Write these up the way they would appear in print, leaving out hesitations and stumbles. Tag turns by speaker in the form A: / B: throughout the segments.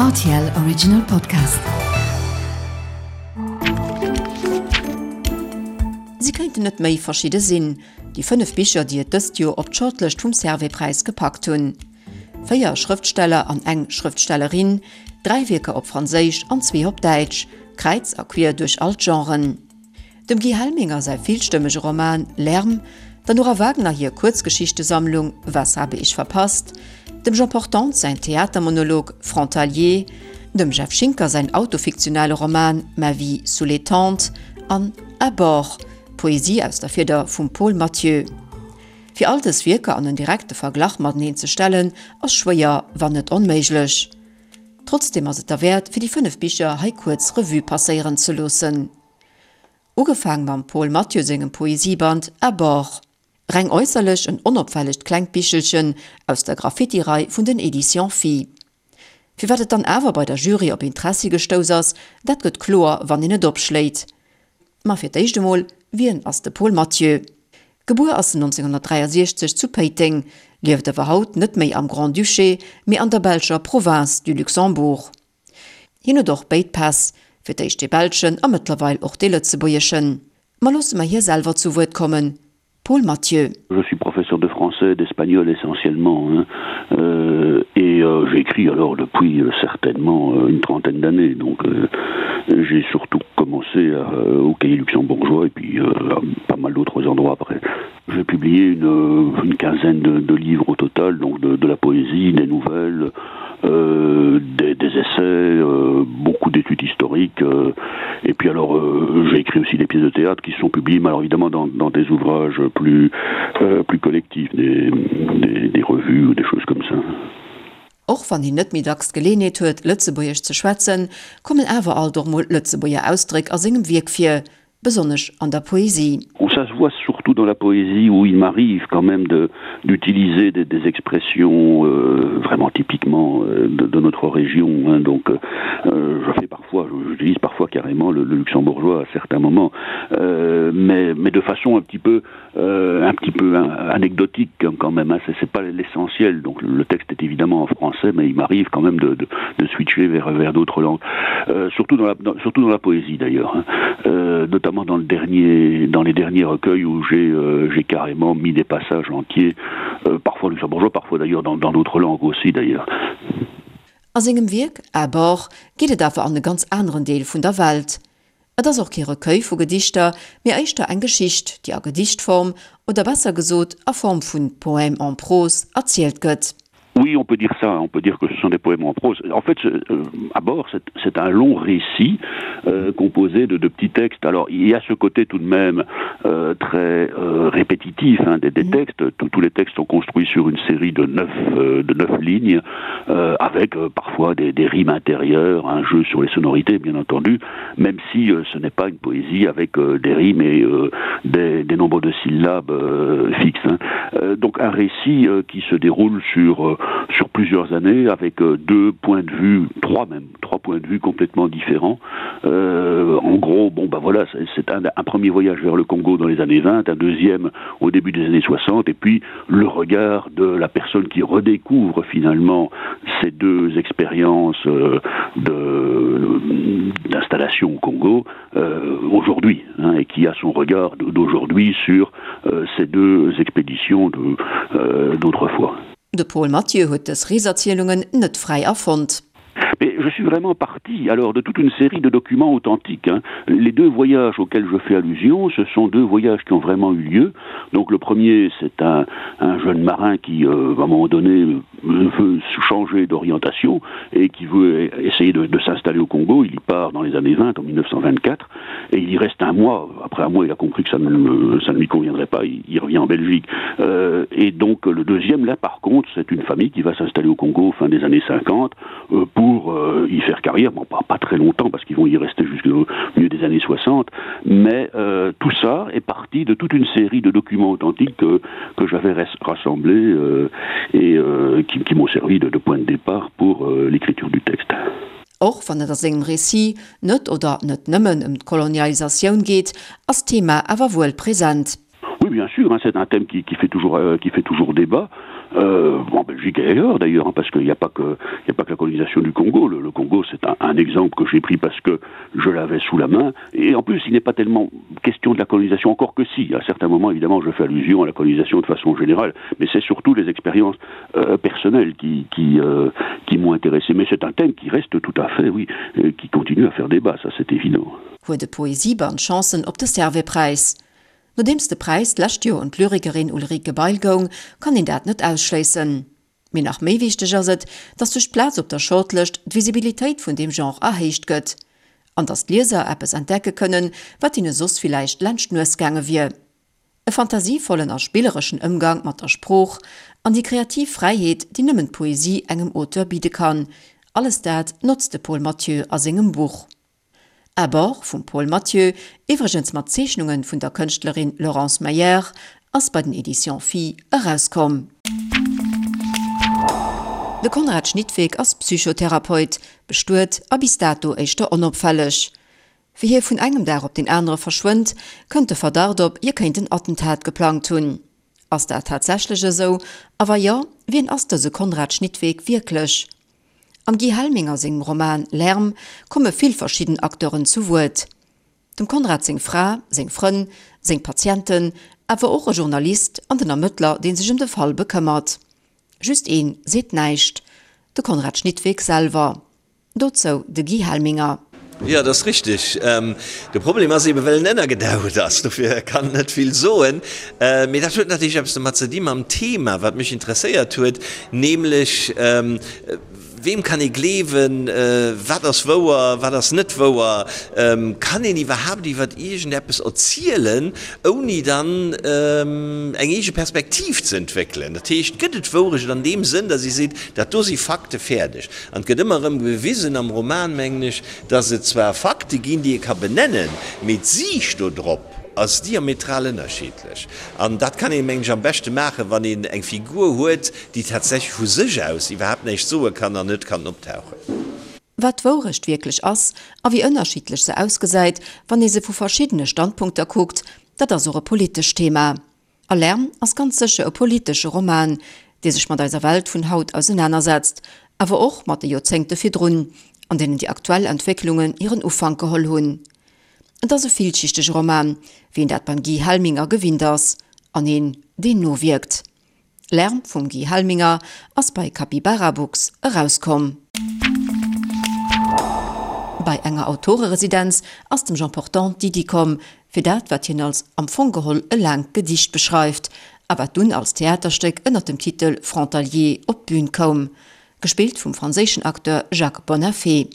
A: Rtl Original Podcast. Si kéinten net méi verschidde sinn, déi 5 Bicher, déi et dëst Joer op d'Shortlëscht vum Servais-Präis gepackt hunn. Véier Schrëftsteller an eng Schrëftstellerin, dräi Wierker op Franséisch an zwee op Däitsch, kräiz a quier duerch all d'Genren. Dem Guy Helminger säi villstëmmege Roman Lärm, der Nora Wagner hir Kuerzgeschichtesammlung Was habe ich verpasst, dem Jean Portante säin Theatermonolog Frontalier, dem Jeff Schinker säin autofiktionale Roman Ma vie sous les tentes an À bord, Poesie aus der Fieder vum Paul Mathieu. Fir all dës Wierker an en direkte Verglach mateneen ze stellen, ass schwéier, wann net onméiglech. Trotzdeem ass et derwäert, fir déi 5 Bicher hei kuerz Revue passéieren ze loossen. Ugefaang mam Paul Mathieu sengem Poesieband À bord. Reng äusserlech en onopfällegt klengt Bichelchen aus der Graffiti-Rei vun den Editions Phi. Firwat et dann awer bei der Jury op Interessi gestouss ass, dat gëtt kloer, wann een et opschléit. Ma fir d'éischt emol, Wien ass de Paul Mathieu? Gebuer ass en 1963 zu Péiteng, lieft awer haut net méi am Grand-Duché, mee an der belscher Province du Luxembourg. Hien huet och béid Päss, fir d'éischt dee belschen a mëttlerweil och dee lëtzebuergeschen. Ma loosse mer hie selwer zu Wuert kommen, Paul Mathieu.
B: Je suis professeur de français et d'espagnol essentiellement hein et j'écris alors depuis certainement une trentaine d'années donc j'ai surtout commencé au cahier luxembourgeois et puis pas mal d'autres endroits après. J'ai publié une, une quinzaine de, de livres au total, donc de, de la poésie, des nouvelles, euh, des, des essais, euh, beaucoup d'études historiques. Euh, et puis alors, euh, j'ai écrit aussi des pièces de théâtre qui sont publiées, mais alors évidemment dans, dans des ouvrages plus, euh, plus collectifs, des, des, des revues ou des choses comme ça.
A: Och wann hien net méi dacks d'Geleeënheet huet, Lëtzebuergesch ze schwätzen, kommen awer alt och mol Lëtzebuerger Ausdréck a sengem Wierk vir, besonnesch an der Poesie.
B: Ça se voit surtout dans la poésie où il m'arrive quand même de d'utiliser des, des expressions euh, vraiment typiquement euh, de, de notre région hein. donc euh, je fais parfois j'utilise parfois carrément le, le luxembourgeois à certains moments euh, mais mais de façon un petit peu euh, un petit peu anecdotique quand même c'est pas l'essentiel donc le texte est évidemment en français mais il m'arrive quand même de, de, de switcher vers vers d'autres langues euh, surtout dans la dans, surtout dans la poésie d'ailleurs euh, notamment dans le dernier dans les derniers recueils où j'ai euh, j'ai carrément mis des passages entiers euh, parfois luxembourgeois parfois d'ailleurs dans d'autres langues aussi d'ailleurs
A: A sengem Wierk À bord geet et awer an e ganz aneren Deel vun der Welt. Et ass och kee Recueil vu Gedichter, mee éischter eng Geschicht, déi a Gedichtform, oder besser gesot a Form vun Poèmes en prose erzielt gëtt.
B: Oui, on peut dire ça, on peut dire que ce sont des poèmes en prose. En fait, euh, à bord, c'est un long récit euh, composé de, de petits textes. Alors, il y a ce côté tout de même euh, très euh, répétitif hein, des, des mmh. textes. Tous, tous les textes sont construits sur une série de neuf, euh, de neuf lignes, euh, avec euh, parfois des, des rimes intérieures, un jeu sur les sonorités, bien entendu, même si euh, ce n'est pas une poésie avec euh, des rimes et euh, des, des nombres de syllabes euh, fixes. Hein. Euh, donc un récit euh, qui se déroule sur, euh, sur plusieurs années avec euh, deux points de vue, trois même, trois points de vue complètement différents. Euh, en gros, bon ben voilà, c'est un, un premier voyage vers le Congo dans les années 20, un deuxième au début des années 60 et puis le regard de la personne qui redécouvre finalement ces deux expériences euh, d'installation au Congo euh, aujourd'hui hein, et qui a son regard d'aujourd'hui sur euh, ces deux expéditions euh, d'autrefois.
A: De Paul Mathieu huet dës Reeserzielungen net fräi erfonnt.
B: Mais je suis vraiment parti alors de toute une série de documents authentiques hein. Les deux voyages auxquels je fais allusion, ce sont deux voyages qui ont vraiment eu lieu. Donc le premier c'est un, un jeune marin qui euh, à un moment donné veut changer d'orientation et qui veut essayer de, de s'installer au Congo. Il y part dans les années 20 en 1924 et il y reste un mois. Après un mois il a compris que ça ne, ça ne lui conviendrait pas, il, il revient en Belgique. Euh, et donc le deuxième là par contre c'est une famille qui va s'installer au Congo fin des années 50 euh, pour euh, y faire carrière, bon, pas, pas très longtemps parce qu'ils vont y rester jusqu'au milieu des années 60, mais euh, tout ça est parti de toute une série de documents authentiques que, que j'avais rassemblés euh, et euh, qui, qui m'ont servi de, de point de départ pour euh, l'écriture du texte.
A: Och wann et a sengem Récit net oder net nëmmen ëm d'Kolonialisatioun geet, ass d'Thema awer wuel present.
B: Oui, bien sûr, hein, c'est un thème qui, qui, fait toujours, euh, qui fait toujours débat. euh, en Belgique et ailleurs d'ailleurs, parce qu'il n'y a pas que il n'y a pas que la colonisation du Congo. Le, le Congo, c'est un, un exemple que j'ai pris parce que je l'avais sous la main. Et en plus, il n'est pas tellement question de la colonisation, encore que si. À certains moments, évidemment, je fais allusion à la colonisation de façon générale, mais c'est surtout les expériences euh, personnelles qui, qui, euh, qui m'ont intéressé. Mais c'est un thème qui reste tout à fait, oui, euh, qui continue à faire débat, ça c'est évident.
A: Huet de Poesieband Chancen op de Servais-Präis? Nodeems de Präis d'lescht Joer un d'Lyrikerin Ulrike Bail goung, kann een dat net ausschléissen. Mee nach méi wichteg ass et, datt duerch d'Plaz op der Shortlëscht d'Visibilitéit vun deem Genre erhéicht gëtt. An datt d'Lieser eppes entdecke kënnen, wat hinne soss villäicht laanscht d'Nues gaange wier. E fantasievollen a spillereschen Ëmgang mat der Sprooch an déi kreativ Fräiheet, déi nëmmen d'Poesie engem Auteur bidde kann, alles dat notzt de Paul Mathieu a sengem Buch. À bord vum Paul Mathieu, iwwregens mat Zeechnunge vun der Kënschtlerin Laurence Meyer, ass bei den Editions Phi erauskomm. De Konrad Schnittweg ass Psychotherapeut, bestuet a bis dato éischter onopfälleg. Wéi hie vun engem Dag op deen anere verschwënnt, kënnt de Verdacht op, hie kéint en Attentat geplangt hunn. Ass dat tatsächlech esou a wa jo, wien ass dëse Konrad Schnittweg wierklech? Am Guy Helminger sengem Roman Lärm komme vill verschidden Acteuren zu Wuert. Dem Konrad seng Fra, seng Frënn, seng Patienten, awer och e Journalist an den Ermëttler, dee sech ëm de Fall bekëmmert. Just een seet näischt, de Konrad Schnittweg selwer. Dozou de Guy Helminger.
C: Jo, dat ass richteg. De Problem ass eben, well en ënnergedaucht ass, dofir kann en net vill soen. Mee dat huet natierlech eppes domat ze di mam Thema, wat mech interesséiert huet, nämlech, Weem kann ee gleewen? Wat ass wouer, wat ass net wouer? Kann een iwwerhaapt iwwer iergendeppes erzielen, ouni dann eng eege Perspektiv ze entwéckelen? Dat heescht, gëtt et Wourecht an deem Sënn, datt ee seet, dat do si Fakte, fäerdeg? An et gëtt ëmmer erëm bewisen am Roman, mengen ech, dass et zwar Fakte ginn, déi ee ka benennen, mee d'Siicht do drop ass diametral ënnerschiddlech. An dat kann een, mengen ech, am beschte maachen, wann een eng Figur huet, déi tatsächlech vu sech aus iwwerhaapt näischt soe kann an net kann optauchen.
A: Wat d'Wourecht wierklech ass a wéi ënnerschiddlech se ausgesäit, wann ee se vu verschiddene Standpunkter kuckt, dat ass och e politescht Thema. A Lärm ass ganz sécher e politesche Roman, dee sech mat eiser Welt vun haut ausenanersetzt, awer och mat de Joerzéngte virdrun, an deenen déi aktuell Entwécklungen hiren Ufank geholl hunn. Et ass e villschichtege Roman, wéi een dat beim Guy Helminger gewinnt ass, an een, deen nowierkt. Lärm vum Guy Helminger ass bei Capybara Books erauskomm. Bei enger Autoreresidenz ass dem Jean Portante d'Iddi komm, fir dat, wat hien als am Fong geholl e laangt Gedicht beschreift, a wat dunn als Theaterstéck ënner dem Titel Frontalier op d'Bün koum, gespillt vum franséischen Acteur Jacques Bonnaffé.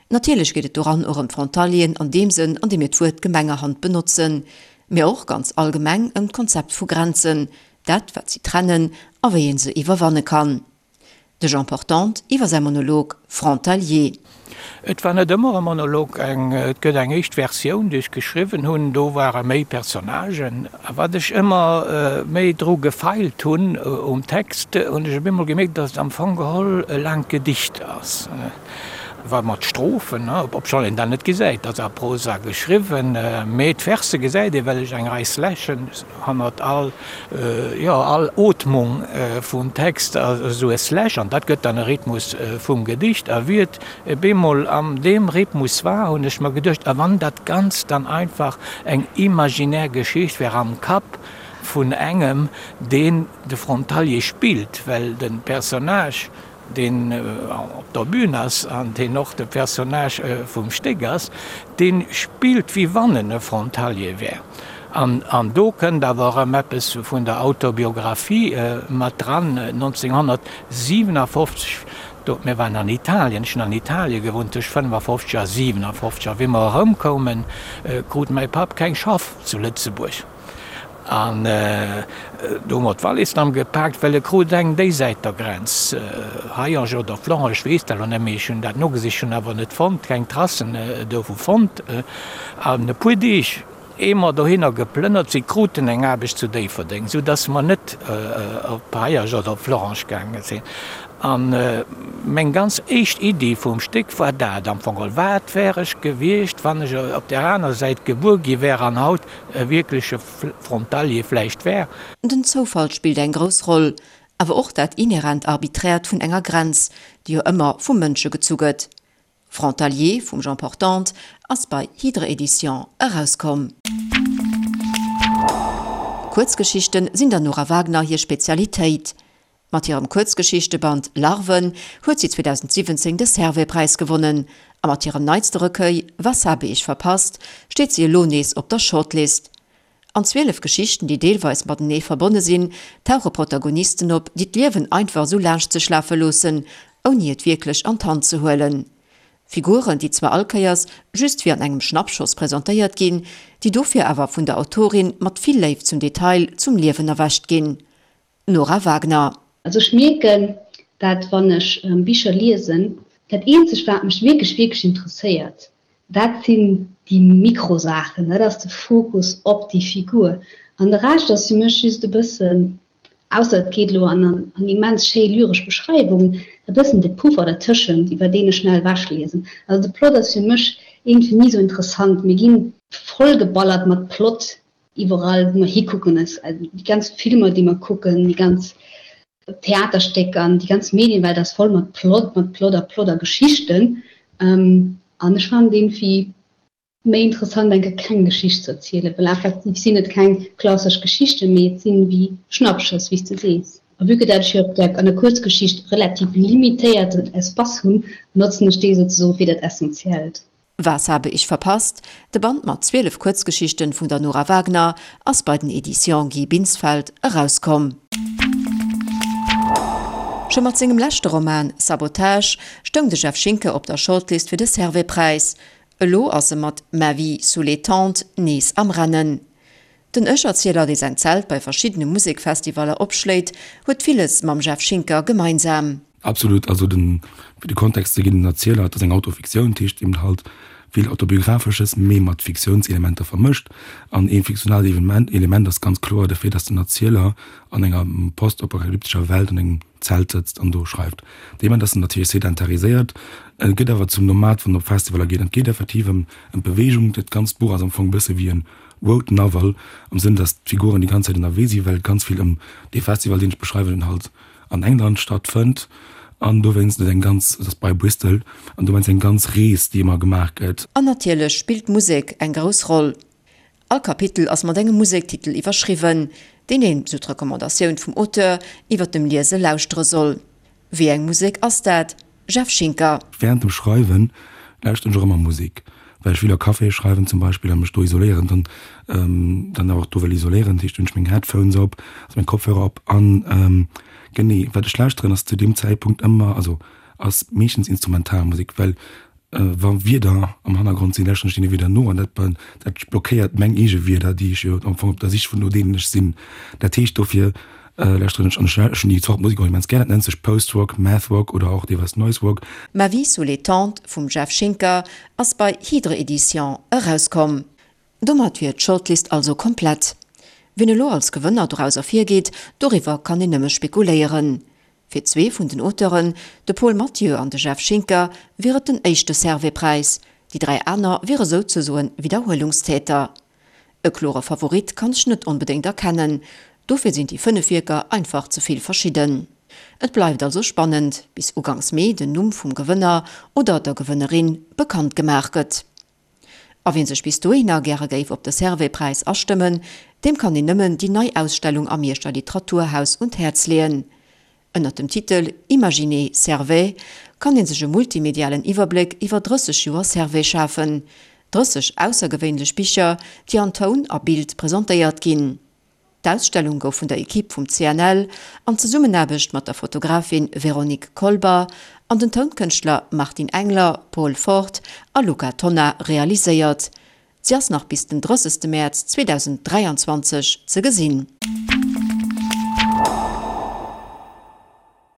A: Natierlech geet et doran och ëm d'Frontalieren an deem Sënn, an deem mir d'Wuert gemengerhand benotzen, mä och ganz allgemeng ëm d'Konzept vu Grenzen, dat wat si trennen a wéi ee se iwwerwanne kann. De Jean Portante iwwer säi Monolog Frontalier.
D: Et war net ëmmer e Monolog, eng, et gëtt eng éischt Versioun, déi ech geschriwwen hunn, do ware méi Personnagen. A wat ech ëmmer méi dru gefeilt hunn um Text, hunn ech op eemol gemierkt, datt et am Fong geholl e laangt Gedicht ass. War mat Strophen, obschonn een dat net gesäit, dat ass a Prosa geschriwwen, mee d'Verse gesäit ee well ech eng Rei Slashen hannert all, jo, all Ootmung vum Text ass esou e Slash an dat gëtt dann e Rhythmus vum Gedicht. A wéi et bemol an deem Rhythmus war, hunn ech mer geduecht, a wann dat Ganzt dann einfach eng imaginär Geschicht wär am Kapp vun engem, deen de Frontalier spillt, well de Personnage, deen op der Bühn ass an deen och de Personnage vum Stéck ass, dee spillt wéi wann en e Frontalier wär. An do kënnt awer erëm eppes vun der Autobiographie mat dran, 1957, do, mir waren an Italien, ech hunn an Italie gewunnt tëscht 55 a 57, a wéi mer erëmkoumen, krut mäi Papp keng Schaff zu Lëtzebuerg. An do hu mer d'Wallis dann gepaakt, well e krut eng déisäit der Grenz, Hayange oder Florange, ech weess dat elo net méi, ech hunn dat nogesicht, hunn awer net fonnt, keng Tracen dovu fonnt. An e puer Deeg, ee mer dohinner geplënnert sinn, kruten eng Aarbecht zu Déifferdeng, sou dass mer net op Hayange oder op Florange gaange sinn. A meng ganz éischt Iddi vum Stéck war dat am Fong geholl, Wat wär ech gewiescht, wann ech op där aner Säit gebuer gi wär an haut e wierkleche Frontalier vläicht wär.
A: Den Zoufall spillt eng grouss Roll. Awer och dat inhärent Arbiträert vun enger Grenz, déi jo ëmmer vu Mënsche gezu gëtt. Frontalier vum Jean Portante ass bei Hydre Éditions erauskomm. Kuerzgeschichten sinn der Nora Wagner hir Spezialitéit. Mat hirem Kuerzgeschichteband Larven huet si 2017 de Servais-Präis gewonnen a mat hirem neitste Recueil Was habe ich verpasst steet si elo nees op der Shortlist. An 12 Geschichten, déi deelweis matenee verbonne sinn, tauche Protagonisten op, déi d'Liewen einfach esou laanscht sech lafe loossen, ouni et wierklech an d'Hand ze huelen. Figuren, déi zwar all Kéiers just wéi an engem Schnappschoss presentéiert ginn, déi dofir awer vun der Autorin mat vill Léift zum Detail zum Liewen erwächt ginn. Nora Wagner.
E: Also ech mierken dat wann ech Bicher liesen, dat eenzegt wat mech wierklech wierklech interesséiert, dat sinn déi Mikrosaachen, dat ass de Fokus op déi Figur an de Rescht ass fir mech just e bëssen, ausser et geet elo an an immens schéi lyresch Beschreiwungen, e bëssen de Puffer dertëschent iwwer deen ech schnell ewechliesen. Also de Plot ass fir mech iergendwéi ni sou interessant, mir ginn vollgeballert mat Plot Iwwerall wou mer hikucken, déi ganz Filmer déi mer kucken, déi ganz Theaterstécker an déi ganz Medienwelt ass voll mat Plot, mat Plot a Plot a Geschichten. An ech fannen et iergendwéi méi interessant eng Kéier keng Geschicht ze erzielen, well effektiv sinn et keng klassesch Geschichten, mee et sinn wéi Schnappschëss, wéi s de sees. A vue que dat ech jo op der an der Kuerzgeschicht relativ limitéierten Espace hunn, notzen ech dee souzesoen fir dat Essentiellt.
A: Was habe ich verpasst? De Band mat 12 Kuerzgeschichten vun der Nora Wagner ass bei den Editions Guy Binsfeld erauskomm. Scho mat sengem leschte Roman Sabotage stoung de Jeff Schinker op der Shortlist fir de Servais-Präis. Elo ass e mat Ma vie sous les tentes nees am Rennen. Den Ech-Erzieler, dee säin Zelt bei verschiddene Musekfestivaller opschléit, huet villes mam Jeff Schinker gemeinsam.
F: Absolut, also den, fir de Kontext ze ginn, den Erzieler, et ass eng Autofiktioun, dat heescht eben halt vill Autobiographesches, mee mat Fiktiounselementer vermëscht. An ee fiktionaalt Evenement, Element ass ganz kloer de Fait, dass den Erzieler an enger postapokalyptescher Welt an engem Zelt sëtzt an do schreift. Dee Moment ass en natierlech sedentariséiert, e gëtt awer zum Nomad, wann en op Festivaller geet. An et geet effektiv ëm d'Beweegung. Dat ganzt Buch ass am Fong e bësse wéi en Road Novel, am Sënn, dass d'Figuren déi ganz Zäit ënnerwee sinn, well et ganz vill ëm dee Festival, deen ech beschreiwen, halt an England stattfënnt an dowéinst et eng ganz, et ass bei Bristol, an dowéinst eng ganz Rees, déi ëmmer gemaach gëtt.
A: An natierlech spillt d'Musek eng grouss Roll. All Kapitel ass mat engem Musektitel iwwerschriwwen, deen een, sou d'Recommandatioun vum Auteur, iwwer dem Liese lauschtere soll. Wéi eng Musek ass dat, Jeff Schinker?
F: Während dem Schreiwen lauschteren ech och ëmmer Musek, well ech vill a Caféë schreiwen zum Beispill a mech do isoléieren, dann dann awer och do wëll isoléieren. Dat heescht, hunn ech meng Headphones op, also meng Kopfhörer op an genee wat ech lauschteren ass zu deem Zäitpunkt ëmmer, also ass meeschtens Instrumentalmusek, well wa Wierder am Hannergrond sinn, lauschteren ech deene Wierder no an dat dat blockéiert meng eege Wierder, déi ech jo am Fong op der Sich vun no deenen ech sinn. Dat heescht dofir Lauschteren ech an ech hunn déi Zort Musek och immens gär. Dat nennt sech Post-Rock, Math-Rock oder och deelweis Noise-Rock.
A: Ma vie sous les tentes vum Jeff Schinker ass bei Hydre Editions erauskomm. Domat wier d'Shortlist also komplett. Wien elo als Gewënner doraus ervirgeet, doriwwer kann een nëmme spekuléieren. Fir zwee vun den Auteuren, de Paul Mathieu an de Jeff Schinker, wier et den éischte Servais-Präis, déi 3 aner wiere souzesoen Widderhuelungstäter. E klore Favorit kann ech net onbedéngt erkennen, dofir sinn déi 5 Wierker einfach ze vill verschidden. Et bleift also spannend, bis ugangs Mee den Numm vum Gewënner oder der Gewënnerin bekannt gemaach gëtt. A wien sech bis dohinner gäre géif op de Servais-Präis astëmmen, deem kann een nëmmen déi nei Ausstellung am Mierscher Literaturhaus un d'Häerz leeën. Ënnert dem Titel Imaginez Servais kann ee sech e multimedialen Iwwerbléck iwwer 30 Joer Servais schafen, 30 aussergewéinlech Bicher, déi an Toun a Bild presentéiert ginn. D'Ausstellung gouf vun der Ekipp vum CNL an Zesummenaarbecht mat der Fotografin Véronique Kolber an den Tounkënschtler Martin Engler, Paul Fort a Luca Tonna realiséiert. Si ass nach bis den 30 Mäerz 2023 ze gesinn.